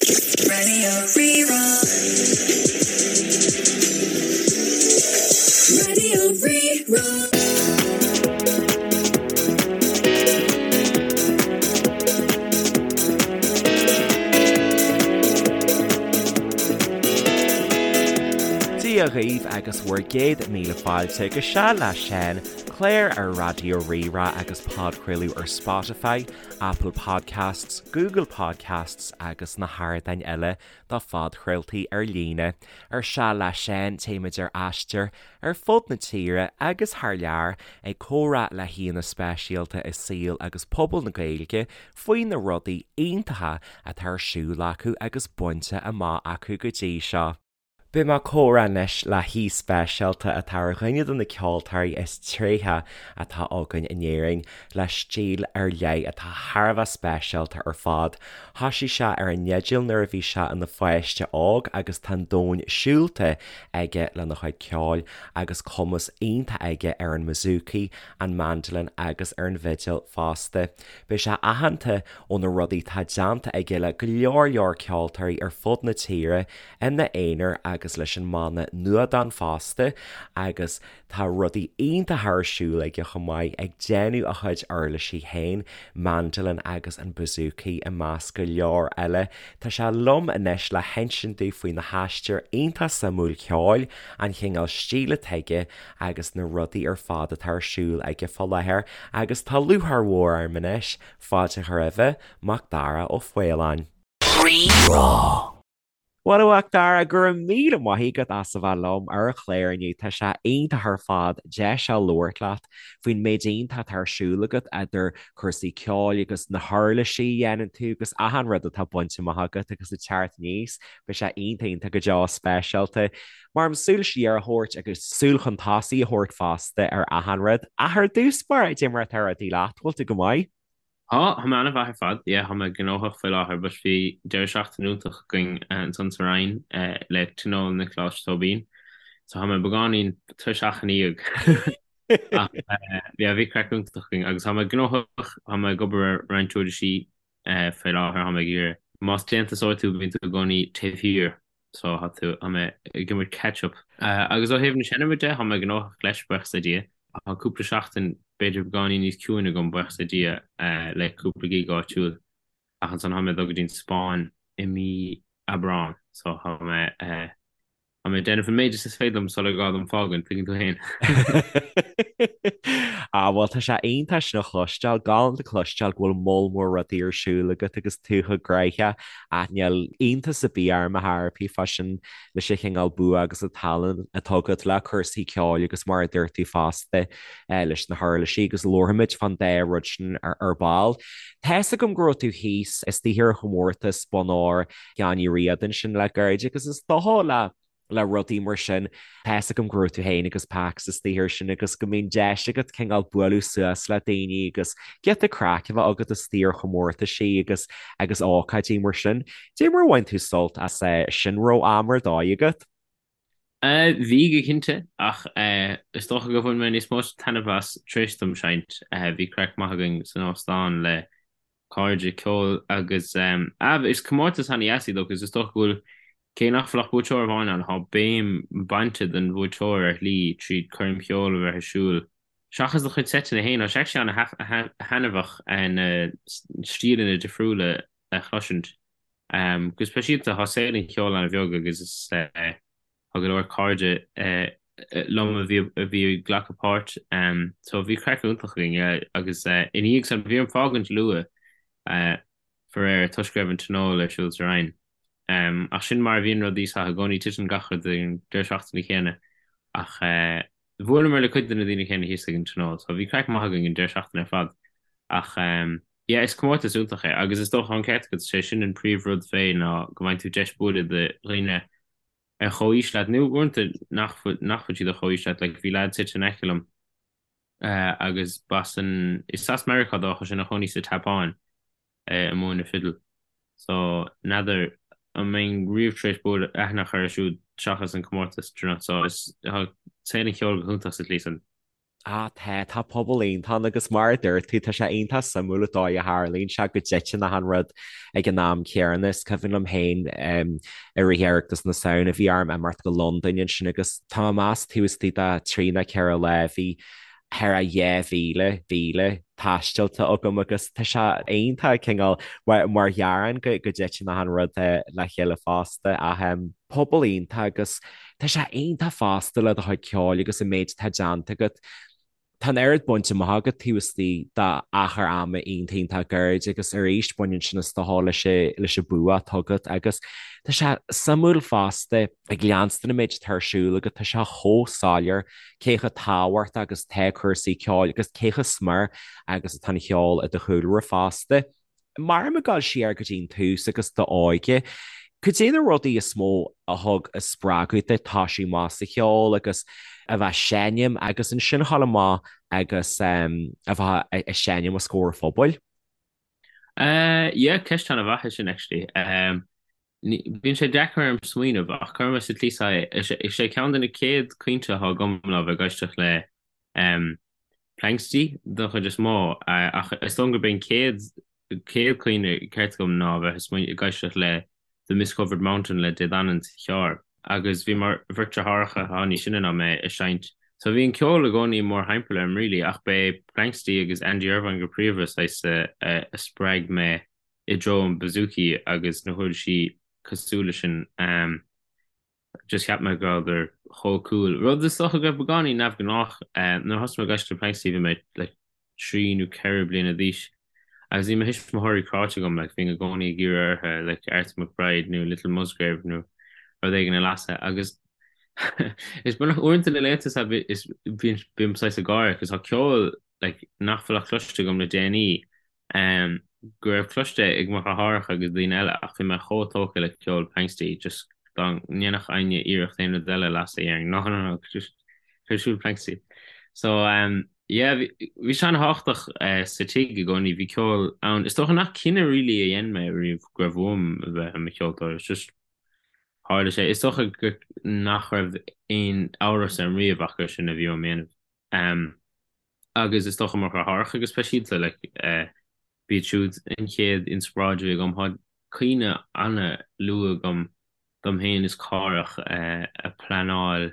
Raidió Rí-Rá. Raidió Rí-Rá. Dia dhaoibh agus bhur gcéad míle fáilte go Seal le Seán, clár ar Raidió Rí-Rá agus podchraoladh ar Spotify, Apple Podcasts, Google Podcasts agus na hardáin eile do phodchraoltaí ar líne. Ar Seal le Seán, téimid ar aistear ar fud na tíre agus thar lear ag comhrá le haíonna speisialta i saol agus pobal na Gaeilge faoi na rudaí iontacha atá ar siúl acu agus bainte amach acu go dtí seo. Beidh mé ag comhrá anois le haoi speisialta atá ar dhuine de na ceoltóirí is tréithe atá againn in Éirinn, le stíl ar leith atá thar a bheith speisialta ar fad. Thoisigh sé ar an fhidil nuair a bhí sé ina pháiste óg agus tá an domhan siúlta aige lena chuid ceoil agus cumas iontach aige ar an mbouzouki, an mandolin agus ar an bhfidil fosta. Beidh sé aitheanta ó na rudaí atá déanta aige le go leor leor ceoltóirí ar fud na tíre ina aonar agus leis an mbanna Nuadán fosta agus tá rudaí iontacha ar siúl aige chomh maith, ag déanamh a chuid uirlisí féin, mandolin agus an bouzouki i measc go leor eile. Tá sé liom anois le hinsint domh faoina haistear iontach suimiúil ceoil, an chineál stíl atá aige agus na rudaí ar fad atá ar siúl aige fá láthair agus tá lúcháir mhór orm anois fáilte a chur roimhe, Macdara Ó Faoláin. Rí-Rá. Bhuel, a Mhacdara, go raibh míle maith agat as a bheith liom ar an chlár inniu. Tá sé iontach ar fad deis a labhairt leat faoin méid iontach atá ar siúl agat idir cúrsaí ceoil agus na huirlisí a dhéanann tú agus achan rud atá bainte amach agat agus ag teacht aníos. Beidh sé iontach iontach go deo speisialta. Mar am súil siar a thabhairt agus súil chun tosaigh a thabhairt fosta ar achan rud. Ach ar dtús báire, cad é mar atá rudaí leat, bhfuil tú go maith? Tá, tá mé an-mhaith ar fad. Yeah, tá mé gnóthach faoi láthair but bhí deireadh seachtaine iontach againn ansan sa Rinn le Tionól Niocláis Tóibín. So tá mé beagáinín tuirseach ina dhiaidh. Ach yeah, bhí craic iontach againn agus tá mé gnóthach, tá mé ag obair ar roinnt uirlisí faoi láthair, tá mé ag iarraidh. Más déantúsóir tú, bíonn tú i gcónaí taobh thiar. So tá tú, tá mé ag imirt catch up. Agus ó thaobh na seinme de, tá mé gnóthach leis, buíochas le Dia. Tá cúpla seachtain, b'fhéidir beagáinín níos ciúine agam, buíochas le Dia, le cúpla gig áitiúil. Ach ansan tá mé ag dul go dtí an Spáinn i mí Aibreán, so tá mé, tá mé ag déanamh an méid is is féidir liom sular gá dom fágaint, tuigeann tú féin. Ah, bhuel, tá sé iontach sin a chloisteáil, galánta cloisteáil go bhfuil moll mór rudaí ar siúl agat agus tú chomh gnoitheach. Ach níl iontas ar bith orm ar chor ar bith fá sin leis an chineál bua agus an tallann atá agat le cúrsaí ceoil agus mar a dúirt tú fosta leis na huirlisí agus labharfaimid fán dá rud sin ar ball. Tá's agam go raibh tú thíos istigh ar chomórtas Bonn Óir Sheáin Uí Riada ansin le gairid agus is dócha le le rudaí mar sin. Tá's agam go raibh tú féin agus Pax istigh air sin agus go mbíonn deis agat cineál bualadh suas le daoine agus giota craic a bheith agat istigh ar chomórtaisí agus agus ócáidí mar sin. Cad é mar a bhain tú sult as sin raibh am ar dóigh agat? Bhí go cinnte, ach is dócha gur bhain mé níos mó taitneamh as tar éis dom seinnt. Bhí craic maith againn san óstán le cairde ceoil agus ah is comórtas ana-dheas iad agus is dócha go bhfuil, cé nach bhfuil ach buaiteoir amháin ann, tá béim bainte den bhuaiteoir ar shlí tríd coirm cheoil a bheith ar siúl. Seachas do chuid seiteanna féin, tá sé actually ana-thaitneamhach na stíleanna difriúla a chloisint. Go speisialta, tá saol an cheoil ana-bheag agus is Tá go leor cairde liom a bhí a bhí ag glacadh páirt so bhí craic iontach againn agus ina dhiaidh san bhí orm fágaint luath faraor toisc go raibh an tionól ar siúl sa Rinn. Ach sin mar a bhíonn rudaí so i gcónaí titeann gach rud ar an deireadh seachtaine céanna ach bhuaileamar le cuid de na daoine céanna thíos ag an tionól so bhí craic maith againn an deireadh seachtaine ar fad ach yeah is comórtas iontach é agus is dócha an ceart agat sé sin an príomh rud fé ná go bhfaigheann tú deis bualadh le dhaoine ar chomhaois leat, nó uaireanta nach bhfuil, nach bhfuil siad ar chomhaois leat, like bhí leaid suite in aice liom agus b'as an, is as Meiriceá dó ach tá sé ina chónaí sa tSeapáin ag múineadh fidil. So n'fheadar an mbeinn riamh tar éis bualadh, aithne a chur air siúd seachas an comórtas, do you know, so is, tá saol an cheoil go hiontach sa tslí san. Ah tá, tá pobal iontach ann agus mar a dúirt tú, tá sé iontach suimiúil an dóigh a tharlaíonn sé go dtiteann achan rud ag an am céanna. Is cuimhin liom féin i rith Oireachtas na Samhna bhí orm imeacht go Londain ansin agus tá mé ag meas taobh istigh de thrí nó ceithre lá bhí thar a 2,000 mhíle taistealta agam agus tá sé iontach cineál mar ghearán go dtiteann achan rud le chéile fosta ach pobal iontach agus Tá sé iontach fosta le do chuid ceoil agus an méid atá déanta agat. Tá an oiread bainte amach agat taobh istigh d'achar ama iontach iontach gairid agus arís baineann sin is dócha leis leis an bua atá agat agus tá sé suimiúil fosta ag leanstan an méid atá ar siúl agat tá sé chomh soiléir cé chomh tábhachtach agus atá cúrsaí ceoil agus cé chomh smior agus atá an cheol i do chúlra fosta. Mar ag dul siar go dtí an tús agus d'óige, cad é na rudaí is mó a thug a spreagadh duit toisiú amach sa cheol agus a bheith ag seinm agus ansin a dhul amach agus a bheith ag seinm os comhair an phobail? Yeah, ceist an-mhaith é sin actually. Bíonn sé deacair orm smaoineamh ach cuirfidh mé sa tslí seo é, is é ceann de na chéad cuimhní atá agam ná bheith ag éisteacht le Planxty don chuid is mó ach is dóigh gurb é an chéad chéad chuimhne ceart agam ná bheith ag éisteacht le The Mist-Covered Mountain le Dé Danann sa charr agus bhí mo bheirt deartháireacha atá níos sine ná mé ag seinnt so bhí an ceol i gcónaí mórthimpeall orm really ach b'é Planxty agus Andy Irvine go príomha saghas a spreag mé i dtreo an bouzouki agus na huirlisí cosúil leis sin. Just cheap mé go rabhadar chomh cool. Rud is dócha go raibh beagáinín neamhghnách. Nuair a thosaigh mé ag éisteacht le Planxty bhí mé like trí nó ceithre bliana d'aois agus bhí mo thuismitheoirí cráite agam like bhínn i gcónaí ag iarraidh orthu like Arthur McBride nó Little Musgrave nó rud éigin a lasadh agus is beagnach uaireanta na laethanta seo is bíonn bím saghas ag gáire cos tá ceol like nach bhfuil ach cloiste agam le déanaí go raibh cloiste ag mo dheartháireacha agus daoine eile ach bhí mé chomh tógtha le ceol Planxty just dá ndéanfadh éinne iarracht aon rud eile a lasadh dhéarfainn no no no just cuir ar siúl Planxty. So yeah bhí bhí sé an-thábhachtach sa tigh i gcónaí bhí ceol ann. Is dócha nach cinneadh really a dhein mé riamh go raibh uaim a bheith i mo cheoltóir it's just tharla sé. Is dócha go nach raibh aon amhras orm riamh ach gur sin a bhí uaim a dhéanamh. Agus is dócha mo dheartháireacha go speisialta, like, b'iad siúd an chéad inspioráid a bhí agam. Tá cuimhne an-luath agam dom féin is Cárthach ag pleanáil,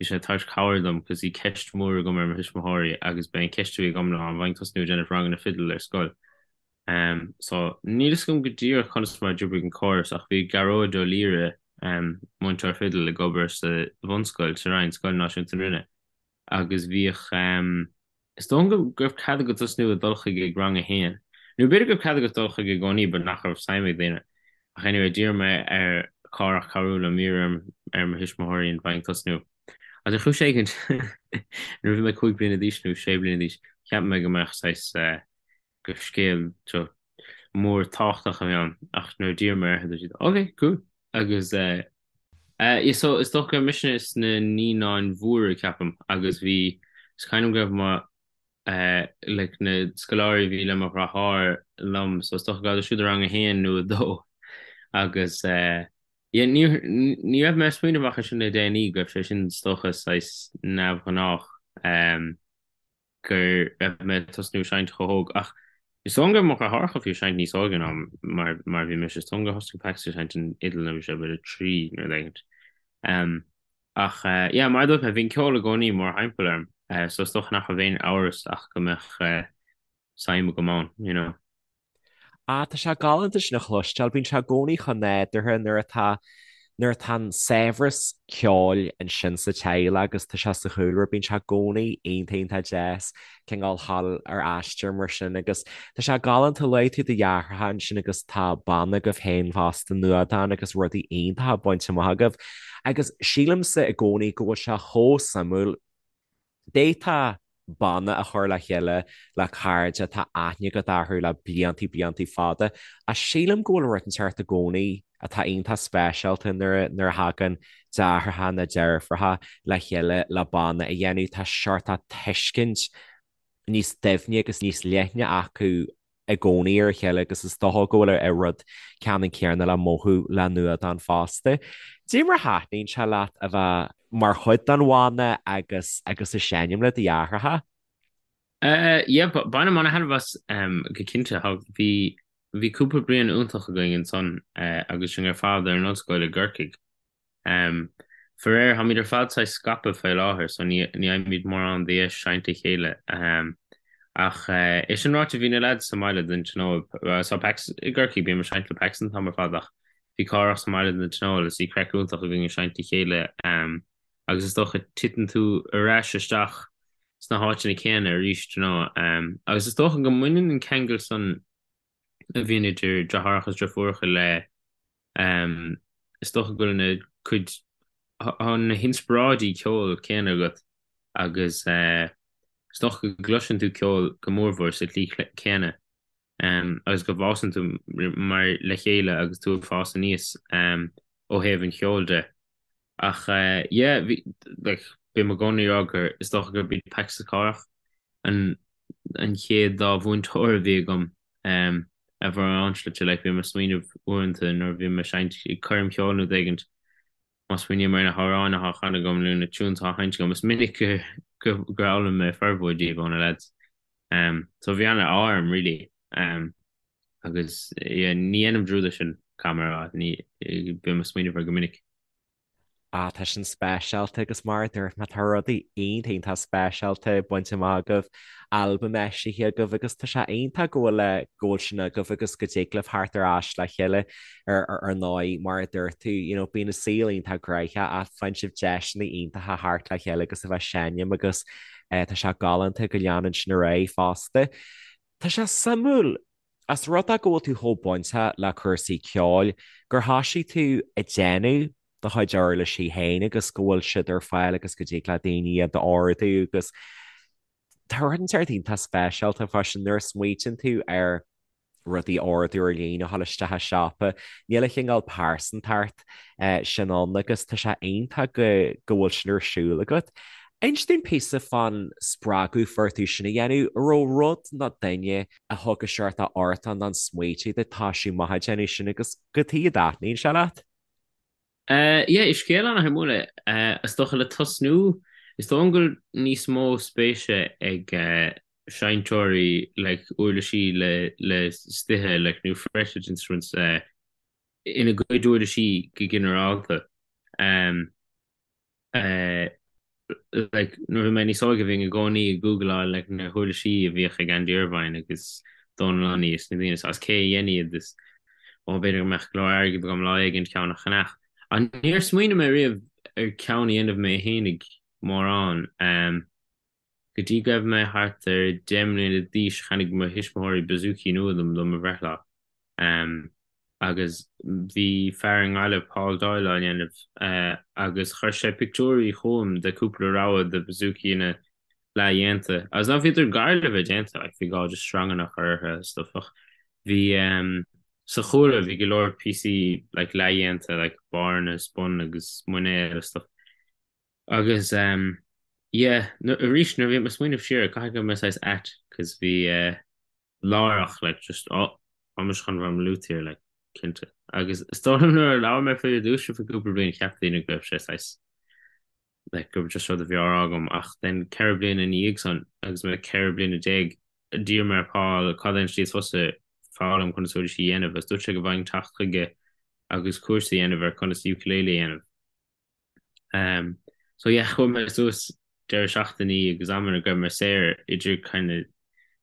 bhí sé ag tabhairt cabhair dom cos bhí ceist mhór agam ar mo thuismitheoirí agus b'é an ceist a bhí agam ná an bhfaighinn tosnú ag déanamh ranganna fidil ar scoil. So níl fhios agam go díreach conas mar a d'oibrigh an córas ach bhí Gearóid Ó Laoire, múinteoir fidil, ag obair sa bhunscoil sa Rinn, Scoil Náisiúnta na Rinne. agus bhíodh, is dóigh liom go raibh cead agat tosnú ag dul chuige ag rang a haon, nó b'fhéidir go raibh cead agat dul chuige i gcónaí but nach raibh suim ag daoine. Ach anyway, d'iarr mé ar Chárthach cabhrú liom iarraidh ar mo thuismitheoirí an bhfaighinn tosnú. Agus ar chúis éigint, nuair a bhí mé 5 bliana d'aois nó 6 bliana d'aois, cheap mé go mbeadh saghas, gur scéal mór tábhachtach a bhí ann ach nuair a d'iarr mé orthu dúirt siad ok, cool agus eh, eh, so is dócha go raibh mise sna naíonáin mhóra ceapaim agus bhí, is cuimhin liom go raibh mo eh, like na scoláirí a bhí le mo dheartháir liom so is dócha go raibh siúd i rang a haon nó a dó agus eh, yeah, ní, ní raibh mé ag smaoineamh ach ansin le déanaí go raibh sé sin is dócha saghas neamhghnách eh, go raibh mé ag tosnú seinnt chomh hóg ach is dóigh liom go raibh mo dheartháireacha fiú ag seinnt níos óige ná mar mar a bhí mise. Is dóigh liom gur thosnaigh Pax ag seinnt an fhidil nuair a bhí sé b'fhéidir 3 nó rud éigint. Ach yeah, mar a dúirt mé, bhí an ceol i gcónaí mórthimpeall orm so is dócha nach raibh aon amhras ach go mbeadh suim agam ann, you know. Ah, tá sé galánta sin a chloisteáil. Bíonn sé i gcónaí chomh nádúrtha nuair atá, nuair atá an saibhreas ceoil ansin sa teaghlach agus tá sé sa chúlra, bíonn sé i gcónaí iontach iontach deas cineál dhul ar aistear mar sin agus tá sé galánta luaigh tú do dheartháireacha ansin agus tá banna agaibh féin fosta, Nuadán agus rudaí iontacha bainte amach agaibh. Agus sílimse i gcónaí go bhfuil sé chomh suimiúil D'fhéadfá banna a chur le chéile le cairde atá aithne agat orthu le bliantaí bliantaí fada, ach sílim go bhfuil rud inteacht i gcónaí atá iontach speisialta nuair nuair a thagann deartháireacha nó deirfiúracha le chéile le banna a dhéanamh. Tá seort tuiscint níos doimhne agus níos leithne acu. i gcónaí ar a chéile agus is dócha go bhfuil an rud ceannann céanna le mothú le Nuadán fosta. Cad é mar a thaitníonn sé leat a bheith mar chuid den bhanna agus agus ag seinm le do dheartháireacha? Yeah, bainim ana-thaitneamh as go cinnte. Bhí bhí cúpla bliain iontach againn ansan agus sinn ar fad ar an ollscoil i gCorcaigh. Faraor, táimid ar fad saghas scaipthe faoi láthair so ní fhaighimid mórán de dheis seinnt le chéile. Ach é sin ráite, bhí na leaids sa mbaile don tionól, so Pax i gCorcaigh, bím ag seinnt le Pax an t-am ar fad ach bhí Cárthach sa mbaile don tionól is bhí craic iontach againn ag seinnt le chéile agus is dócha titeann tú ar ais isteach sna háiteanna céanna arís, you know. Agus is dócha go mbaineann an ceangal san a bhíonn idir deartháireacha is deirfiúracha le Is dócha go bhfuil na cuid, tá na hinspioráidí ceoil céanna agat agus is dócha go gcloiseann tú ceol go mórmhór sa tslí chéanna agus go bhfásann tú mar le chéile agus tú ag fás aníos ó thaobh an cheoil de. Ach yeah, bhí, like, bím i gcónaí ag rá gur, is dócha gurb iad Pax is Cárthach an an chéad dá mhúinteoir a bhí agam ar mhórán slite, like, bím ag smaoineamh uaireanta nuair a bhím ag seinnt ag coirm cheoil nó rud éigint, má smaoiním ar na hamhráin atá á chanadh agam nó na tunes atá á sheinnt agam, is minic gur gur fhoghlaim mé formhór díobh ó na lads. So bhí an-ádh orm really. Agus yeah, ní dhéanaim dearúd air sin, caithfidh mé a rá, ní, bím ag smaoineamh air go minic. Ah, tá sin speisialta agus mar a dúirt mé, tá rudaí iontach iontach speisialta bainte amach agaibh, albam eisithe agaibh agus tá sé iontach go bhfuil go bhfuil sin agaibh agus go dtig libh theacht ar ais le chéile ar ar ndóigh mar a dúirt tú, you know, bíonn an saol iontach gnoitheach ach faigheann sibh deiseanna iontacha theacht le chéile agus a bheith ag seinm agus eh, tá sé galánta go leanann sin ar aghaidh fosta. Tá sé suimiúil As rud é go bhfuil tú chomh bainteach le cúrsaí ceoil, gur thoisigh tú ag déanamh do chuid uirlisí féin agus go bhfuil siad ar fáil agus go dtig le daoine iad a ordú agus tá rud inteacht iontach speisialta fá sin nuair a smaoitíonn tú ar rudaí a ordú ar líne a dhul isteach i siopa, níl an cineál pearsantacht sin ann agus tá sé iontach go go bhfuil sin ar siúl agat. Inis dúinn píosa fán spreagadh a fuair tú sin a dhéanamh, an raibh rud nó duine a thug an seort ort nó an smaoitiú duit toisiú amach ag déanamh sin agus cad chuige a dtaitníonn sé leat? Yeah, is scéal an-shuimiúil é. Is dócha le tosnú, is dóigh liom go bhfuil níos mó spéise ag seinnteoirí like uirlisí le le stithe like nó fretted instruments ina gcuid uirlisí go ginearálta. Like nuair a bhí mé níos óige bhínn i gcónaí ag googleáil like na huirlisí a bhíodh ag Andy Irvine agus Dónal Lunny is na daoine is cé a dhein iad is ó b'fhéidir go mbeadh go leor airgid agam lá éigin ceann a cheannach. Ach níor smaoinigh mé riamh ar ceann a dhéanamh mé fhéinig mórán. Go dtí go raibh mé thart ar 10 mbliana d'aois cheannaigh mo thuismitheoirí bouzouki nua dom do mo bhreithlá. Agus bhí fear i nGaillimh, Paul Doyle, á ndéanamh agus chuir sé pictiúirí chugam de cúpla rogha de bouzoukianna leathdhéanta. Agus ná bhíodar gar le bheith déanta, like bhí gá just sreanganna a chur orthu agus stuff ach bhí sa chúlra bhí go leor píosaí like leathdhéanta like barranna is bun agus muinéal agus stuff. Agus ehm yeah arís nuair a bhí mé ag smaoineamh siar caithfidh go raibh mé saghas ait cos bhí eh láithreach like just oh tá mise chun bheith i mo luthier like cinnte. Agus is dóigh liom nuair a labhair mé faoi ar dtús faoi cúpla bliain cheap daoine go raibh sé saghas like gur just rud a bhí á rá agam ach then ceithre bliana ina dhiaidh san agus mé 14 bliana d'iarr mé ar Paul cad é an tslí is fusa foghlaim conas uirlisí a dhéanamh agus dúirt sé go bhfaighinn teacht chuige agus cúrsa a dhéanamh ar conas ukulele a dhéanamh. Um, so yeah, chuaigh mé suas deireadh seachtainí agus amanna go raibh mé saor idir kind of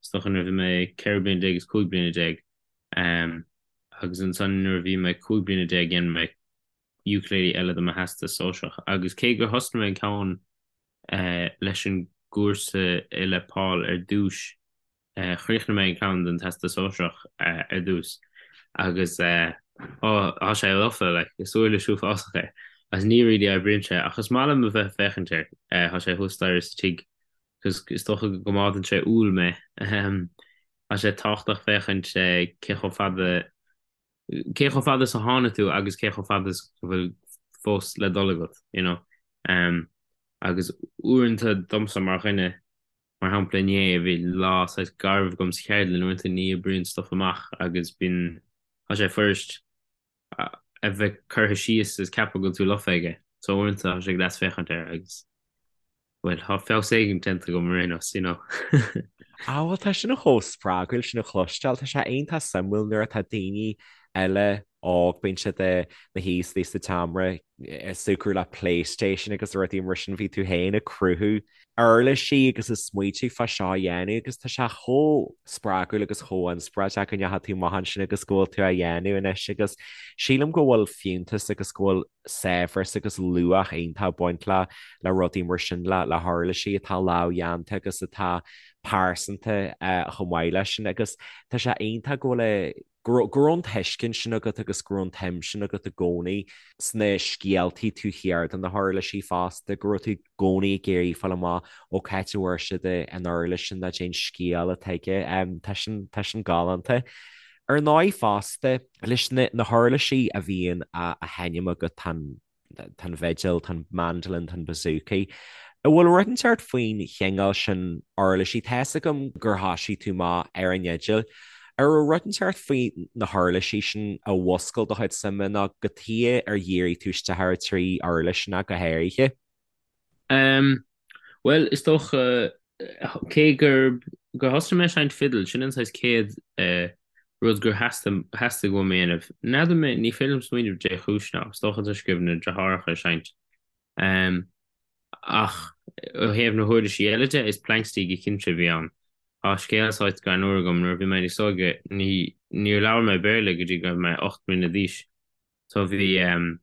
is dócha nuair a bhí mé 14 bliana is 15 bliana. Um, agus ansan nuair a bhí mé 15 bliana dhein mé ukulele eile do mo theastas sóisearach. Agus cé gur thosnaigh mé an ceann uh, leis an gcúrsa le Paul ar dtús, Chríochnaigh mé an ceann don Teastas Sóisearach ar dtús agus tá sé lofa, like, is uirlis uafásach é agus ní really oibríonn sé ach is maith liom a bheith ag féachaint air. Tá sé thuas staighre sa tigh cos is dócha go gcoimeádann sé umhal mé. Tá sé tábhachtach féachaint cé chomh fada cé chomh fada is a tháinig tú agus cé chomh fada is go bhfuil fós le dul agat, you know. Agus uaireanta domsa mar dhuine. Mar shampla inné bhí lá saghas garbh agam sa cheardlann, uaireanta ní oibríonn stuff amach agus bíonn, tá sé fuirist a bheith curtha síos is ceapadh go bhfuil tú lofa aige. So uaireanta tá sé deas féachaint air agus bhuel tá feabhas éigin déanta agam ar aon nós, you know. Ah bhuel tá sin chomh spreagúil sin a chloisteáil, tá sé iontach suimiúil nuair atá daoine eile óg, bíonn siad ina shuí istigh sa tseomra ag súgradh le PlayStation agus rudaí mar sin, bhí tú féin ag cruthú uirlisí agus ag smaoitiú fá seo a dhéanamh agus tá sé chomh spreagúil agus chomh inspioráideach go ndeachaigh tú amach ansin agus go bhfuil tú á dhéanamh anois agus sílim go bhfuil fiúntas agus go bhfuil saibhreas agus luach iontach ag baint le le rudaí mar sin le le huirlisí atá lámhdhéanta agus atá pearsanta chomh maith leis sin agus tá sé iontach go bhfuil go raibh an tuiscint sin agat agus go raibh an tsuim sin agat i gcónaí sna scéaltaí taobh thiar de na huirlisí fosta, go raibh tú i gcónaí ag iarraidh fáil amach ó cá háit a bhfuair siad an uirlis sin nó cén scéal atá aige. Tá sin, tá sin galánta. Ar ndóigh fosta, leis na na huirlisí a bhíonn á sheinm agat tá an tá an bhfidil, tá an mandolin, tá an bouzouki. An bhfuil rud inteacht faoin chineál sin uirlisí? Tá fhios agam gur thosaigh tú amach ar an fhidil. An raibh rud inteacht faoi na huirlisí sin a mhúscail do chuid suime nó cad chuige ar dhírigh tú isteach ar an trí uirlis sin ach go háirithe? Um, bhuel, is dócha, cé gur gur thosaigh mé ag seinnt fidil, sin an saghas céad eh, rud gur theastaigh theastaigh uaim a dhéanamh. N'fheadar mé, ní féidir liom smaoineamh dé chúis ná, is dócha toisc go raibh na deartháireacha ag seinnt. Um, ach ó thaobh na huirlisí eile de, is Planxty go cinnte a bhí ann. Tá scéal saghas greannmhar agam, nuair a bhí mé níos óige, ní, níor labhair mé Béarla go dtí go raibh mé 8 mbliana d'aois. So bhí em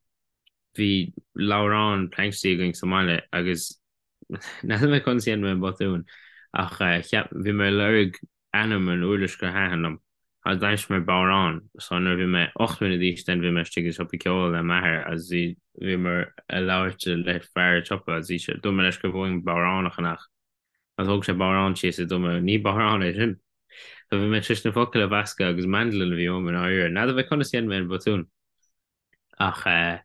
bhí leabhrán Planxty againn sa mbaile agus n'fheadar mé conas a dhein mé an botún ach eh cheap bhí mé ag lorg ainm an uirlis gur thaitin liom agus d'aimsigh mé bodhrán so nuair a bhí mé 8 mbliana d'aois then bhí mé istigh i siopa ceoil le m'athair agus bhí bhíomar ag labhairt le fear an tsiopa agus bhí sé dúirt mé leis go raibh uaim bodhrán a cheannach agus thóg sé bodhrán síos is dúirt mé ní bodhrán é sin. So bhí mé tar éis na focail a mheascadh agus mandolin a bhí uaim i ndáiríre. N'fheadar mé conas a dhein mé an botún. Ach eh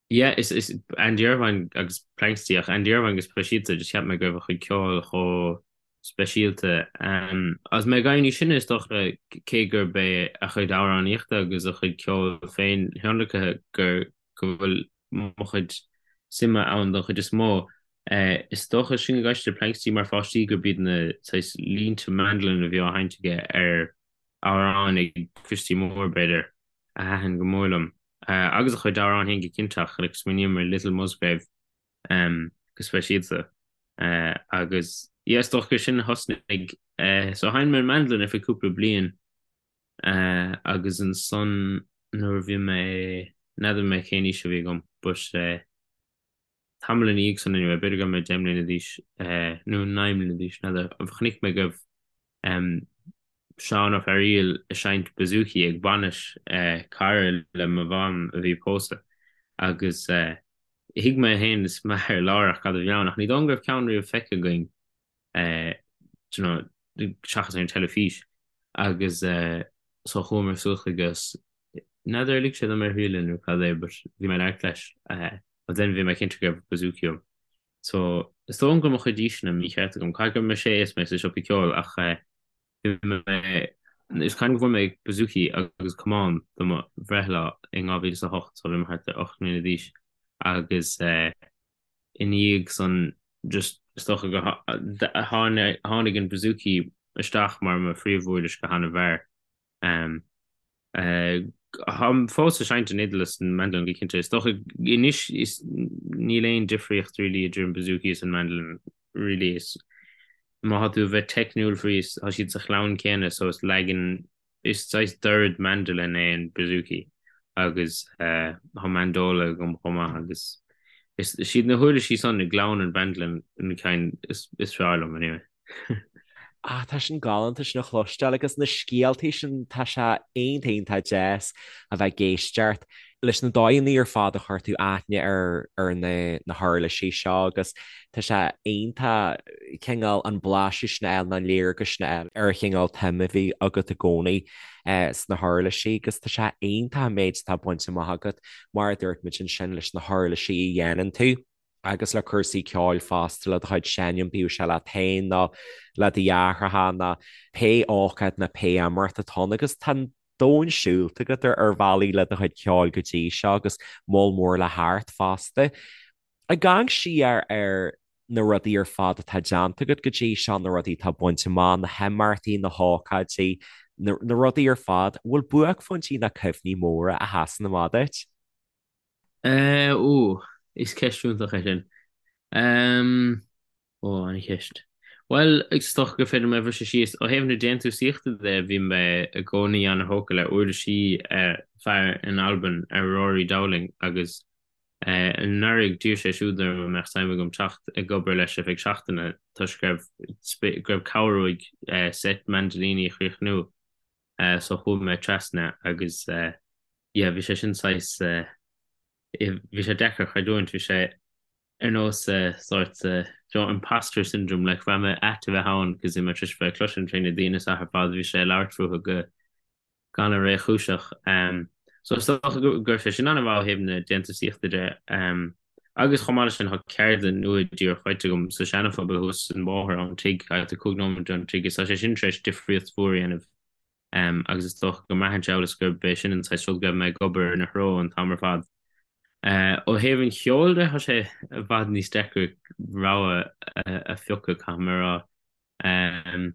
yeah is is Andy Irvine agus Planxty ach Andy Irvine go speisialta just cheap mé go raibh a chuid ceoil chomh speisialta. Um agus mé ag éirí níos sine is dócha cé gurb é a chuid amhránaíochta agus a chuid ceoil féin thionlaicthe gur go bhfuil mo chuid suime ann don chuid is mó. Is dócha sin ag éisteacht le Planxty mar pháistí gurb iad na saghas línte mandolin a bhí á sheinnt aige ar amhráin ag Christy Moore, b'fhéidir, a thaitin go mór liom. Agus a chuid amhrán féin go cinnte ach like smaoiním ar Little Musgrave go speisialta. Agus yeah is dócha gur sin a thosnaigh. So sheinn mé an mandolin ar feadh cúpla bliain Agus ansan nuair a bhí mé, n'fheadar mé cén aois a bhí agam but tamall ina dhiaidh san anyway, b'fhéidir go raibh mé 10 mbliana d'aois nó 9 mbliana d'aois, n'fheadar, chonaic mé go raibh Seán Ó Fearghaíl ag seinnt bouzouki ag bainis cara le mo mham a bhí ag pósadh agus thuig mé féin is m'athair láithreach cad a bhí ann ach ní dóigh liom go raibh ceann riamh feicthe againn do you know, seachas ar an teilifís agus so chuamar suas chuige agus n'fheadar ar lig sé dom é a thriail nó cad é but bhí mé ag labhairt leis but then bhí mé cinnte go raibh bouzouki uaim. So is dóigh liom go raibh mo chuid aoiseanna mícheart agam, caithfidh go raibh mé sé is mé sa siopa ceoil ach bhí mé is cuimhin go bhfuair mé bouzouki agus camán do mo bhreithlá in 2008 so bhí mé thart ar 8 mbliana d'aois agus ina dhiaidh san just is dócha gur tháinig an bouzouki isteach mar mo phríomhuirlis go han-mhear. Táim fós ag seinnt an fhidil is an mandolin go cinnte. Is dócha anois is níl aon difríocht really idir an bouzouki is an mandolin really is má tá tú a bheith teicniúil faoi is tá siad sa chlann céanna so is leagan Is saghas dord mandolin é an bouzouki agus tá mandola agam chomh maith agus is iad na huirlisí san i gclann an mhandolin na cinn is fearr liom anyway. Ah, tá sin galánta sin a chloisteáil agus na scéaltaí sin tá sé iontach iontach deas a bheith ag éisteacht leis na dóigheanna ar fad a chuir tú aithne ar ar na na huirlisí seo agus tá sé iontach cineál an blaiseadh sin a fháil nó an léargas sin a fháil ar an chineál tsuim a bhí agat i gcónaí sna huirlisí agus tá sé iontach an méid atá bainte amach agat mar a dúirt muid ansin leis na huirlisí a dhéanann tú. agus le cúrsaí ceoil fosta, le do chuid seinm, bíodh sé leat féin nó le do dheartháireacha nó pé ócáid nó pé imeacht atá ann agus tá an domhan siúlta agat ar bhealaí le do chuid ceoil go dtí seo agus moll mór le thart fosta. Ag amharc siar ar na rudaí ar fad atá déanta agat go dtí seo, na rudaí atá bainte amach, na himeachtaí, na hócáidí, na rudaí ar fad, an bhfuil buaicphointí nó cuimhní móra a sheasann amach duit? Eh, ó, is ceist iontach é sin. Ehm, ó, an-cheist. Bhuel, is dócha gur féidir liom é a bhriseadh síos. Ó thaobh na déantúsaíochta de, bhí mé i gcónaí an-thógtha le uirlisí fear in Albain, Rory Dowling, agus eh, anuraidh d'iarr sé siúd orm an mbeadh suim agam teacht ag obair leis ar feadh seachtaine toisc go raibh go raibh cabhair uaidh eh, seit mandolíní a chríochnú. Eh, so chuaigh mé trasna agus eh, yeah, bhí sé sin saghas, bhí sé deacair a chreidiúint, bhí sé ar nós sórt, you know, imposter syndrome, like bhraith mé ait a bheith ann cos bhí mé tar éis bheith ag cloisint faoi na daoine seo ar fad, bhí sé ag labhairt fúthu go han-réchúiseach. So is dócha go raibh sé sin an-mhaith ó thaobh na déantúsaíochta de. Agus chomh maith leis sin tá ceardlann nua díreach faighte agam sa Seana-Phobal thuas an bóthar ón tigh, thart ar 5 nóiméad ón tigh, is tá sé sin tar éis difríocht mhór a dhéanamh. Agus is dócha go mbraitheann sé amhail is gurb é sin an saghas rud go raibh mé ag obair ina threo an t-am ar fad. Ó thaobh an cheoil de, tá sé i bhfad níos deacra rogha a phiocadh, caithfidh mé a rá.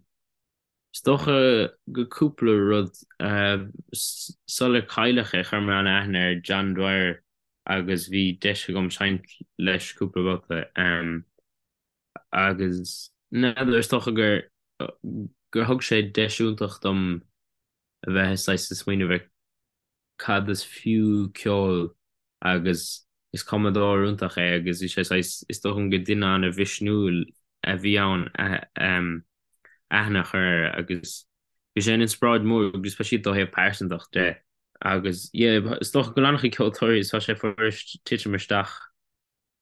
Is dócha go cúpla rud. Sular cailleadh é, chuir mé an-aithne ar John Dwyer agus bhí deis agam seinnt leis cúpla babhta. Agus n'fheadar, is dócha gur gur thug sé deis iontach dom a bheith saghas ag smaoineamh ar cad is fiú ceol agus is cumadóir iontach é agus bhí sé saghas, is dócha gur duine an-mhisniúil a bhí ann aithne a chur air agus bhí sé ina inspioráid mór go speisialta ó thaobh pearsantach de agus yeah, is dócha go bhfuil an-chuid ceoltóirí tá sé fuirist titim isteach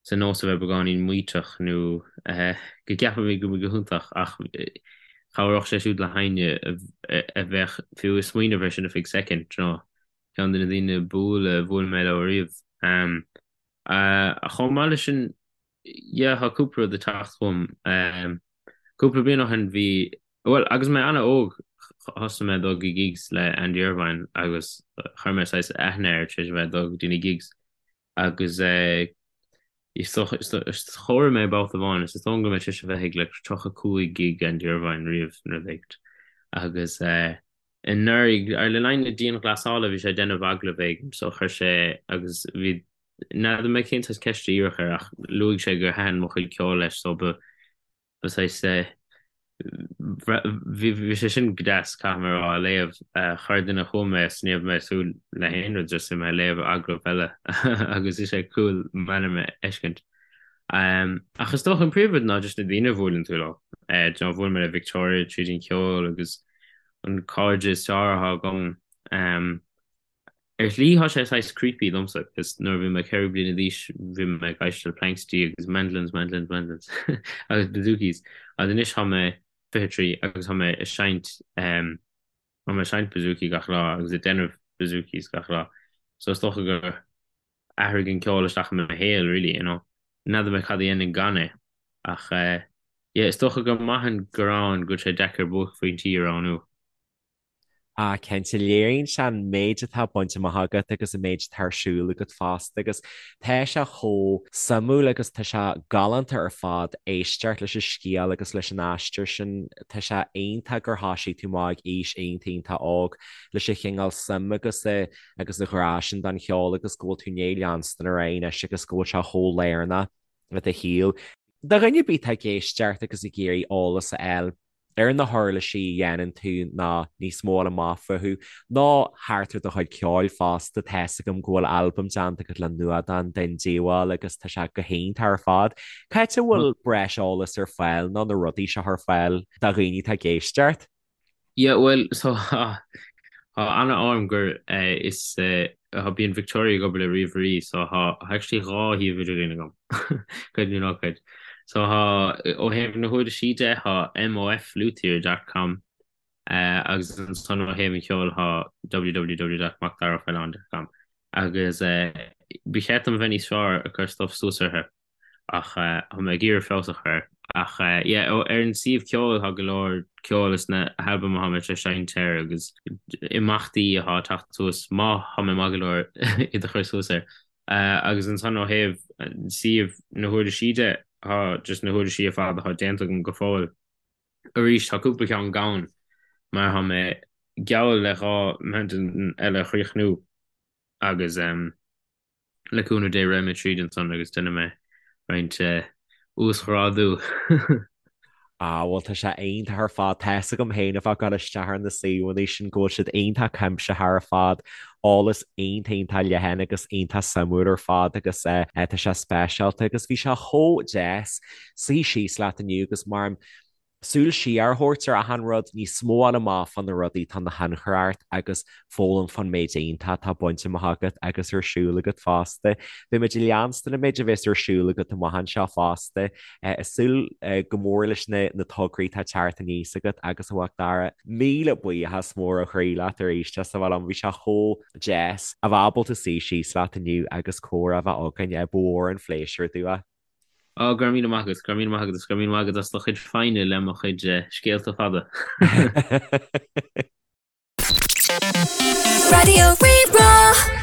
sa nós a bheith beagáinín maíteach nó go gceapaimid go bhfuil go hiontach ach chabhródh sé siúd le héinne a bheadh fiú ag smaoineamh air sin ar feadh soicind, you know. Ceann de na daoine ba umhaile a bhuail mé leo ariamh. Chomh maith leis sin, yeah, tá cúpla rud ag teacht chugam. Cúpla bliain ó shin bhí, bhuel, agus mé an-óg, thosaigh mé ag dul go gigs le Andy Irvine agus chuir mé saghas aithne air tar éis a bheith ag dul go dtí na gigs. Agus is dócha, chomhair mé babhta amháin, is dóigh liom go raibh mé tar éis a bheith ag like 35 gig Andy Irvine riamh nó rud éigin. Agus anuraidh, ar le linn na dianghlasála bhí sé ag déanamh agallamh éigin so chuir sé agus bhí, n'fheadar mé cén saghas ceist a iarradh air ach luaigh sé gur thaitin mo chuid ceoil leis so ba Ba saghas é. Bhí sé sin go deas, caithfidh mé a rá, a léamh. Chuir duine chugam é is ní raibh mé ag súil le haon rud, just bhí mé ag léamh agallamh eile agus bhí sé cool m'ainm a fheiscint. Ach is dócha an príomhrud ná just na daoine a bhuaileann tú leo. Do you know, bhuail mé le Victoria tríd an cheol agus an cairde is fearr atá agam. Ar shlí tá sé saghas creepy domsa cos nuair a bhí mé 4 bliana d'aois bhí mé ag éisteacht le Planxty agus mandolins, mandolins, mandolins agus bouzoukis agus anois tá mé 23 agus tá mé ag seinnt ehm tá mé ag seinnt bouzouki gach lá agus ag déanamh bouzoukis gach lá so is dócha gur athraigh an ceol isteach i mo shaol really you know. N'fheadar mé cad a dhéanfainn gan é ach eh yeah is dócha gur maith an gearán go bhfuil sé deacair buaicphointí a roghnú. Ah, cinnte, léiríonn sé an méid atá bainte amach agat agus an méid atá ar siúl agat fosta agus tá sé chomh suimiúil agus tá sé galánta ar fad éisteacht leis an scéal agus leis an aistear sin. Tá sé iontach gur thosaigh tú amach ag aois iontach iontach óg leis an chineál suim agus a agus a ghrá sin don cheol agus go bhfuil tú i ndiaidh leanstan ar aghaidh anois agus go bhfuil sé chomh lárnach i do shaol. Do dhuine ar bith atá ag éisteacht agus ag iarraidh eolas a fháil ar na huirlisí a dhéanann tú nó níos mó a fháil amach fúthu, nó thart ar do chuid ceoil fosta, tá's agam go bhfuil albam déanta agat le Nuadán den Diabhal agus tá sé go hiontach ar fad. Cá háit a bhfuil breis eolais ar fáil nó na rudaí seo ar fáil do dhaoine atá ag éisteacht? Yeah, bhuel, so tá an-ádh orm gur is tá bíonn Victoria ag obair le ríomhairí so tá actually dhá shuíomh idirlín agam, creid é nó ná creid. So tá, ó thaobh na huirlisí de, tá mofluthier dot com agus ansan ó thaobh an cheoil tá www dot macdaraofaoileáin dot com agus ba cheart dom a bheith níos fearr ag cur stuff suas orthu. Ach tá mé ag iarraidh feabhas a chur air. Ach yeah, ar an suíomh ceoil tá go leor ceoil is na halbaim atá mé tar éis seinnt air agus imeachtaí atá ag teacht suas, má tá mé maith go leor iad a chur suas air. Agus ansan ó thaobh suíomh na huirlisí de, tá just na huirlisí ar fad atá déanta agam go fóill. Arís tá cúpla ceann gann mar tá mé geall le 2 mandolin eile a chríochnú agus le cúnamh Dé raghaidh mé tríd ansan agus déanfaidh mé roinnt uasghrádú. Ah bhuel tá sé iontach ar fad. Tá's agam féin a bheith ag dul isteach ar na suíomhanna sin go bhfuil siad iontach cuimsitheach ar fad, eolas iontach iontach leathan agus iontach suimiúil ar fad agus eh tá sé speisialta agus bhí sé chomh deas suí síos leat inniu agus mar súil siar a thabhairt ar achan rud, níos mó a fháil amach fá na rudaí atá ina thionchar ort agus foghlaim fán méid iontach atá bainte amach agat agus ar siúl agat fosta. Beidh muid ag leanstan an méid a bheas ar siúl agat amach anseo fosta. Ag súil go mór leis na tograí atá ag teacht aníos agat agus a Mhacdara, míle buíochas mór ó chroí leat arís as a bheith liom, bhí sé chomh deas a bheith ábalta suí síos leat inniu agus comhrá a bheith againn, ba mhór an phléisiúr domh é. Ó, go raibh míle maith agat, go raibh míle maith agat agus go raibh míle maith agat as do chuid foighne le mo chuid scéalta fada. Raidió Rí-Rá.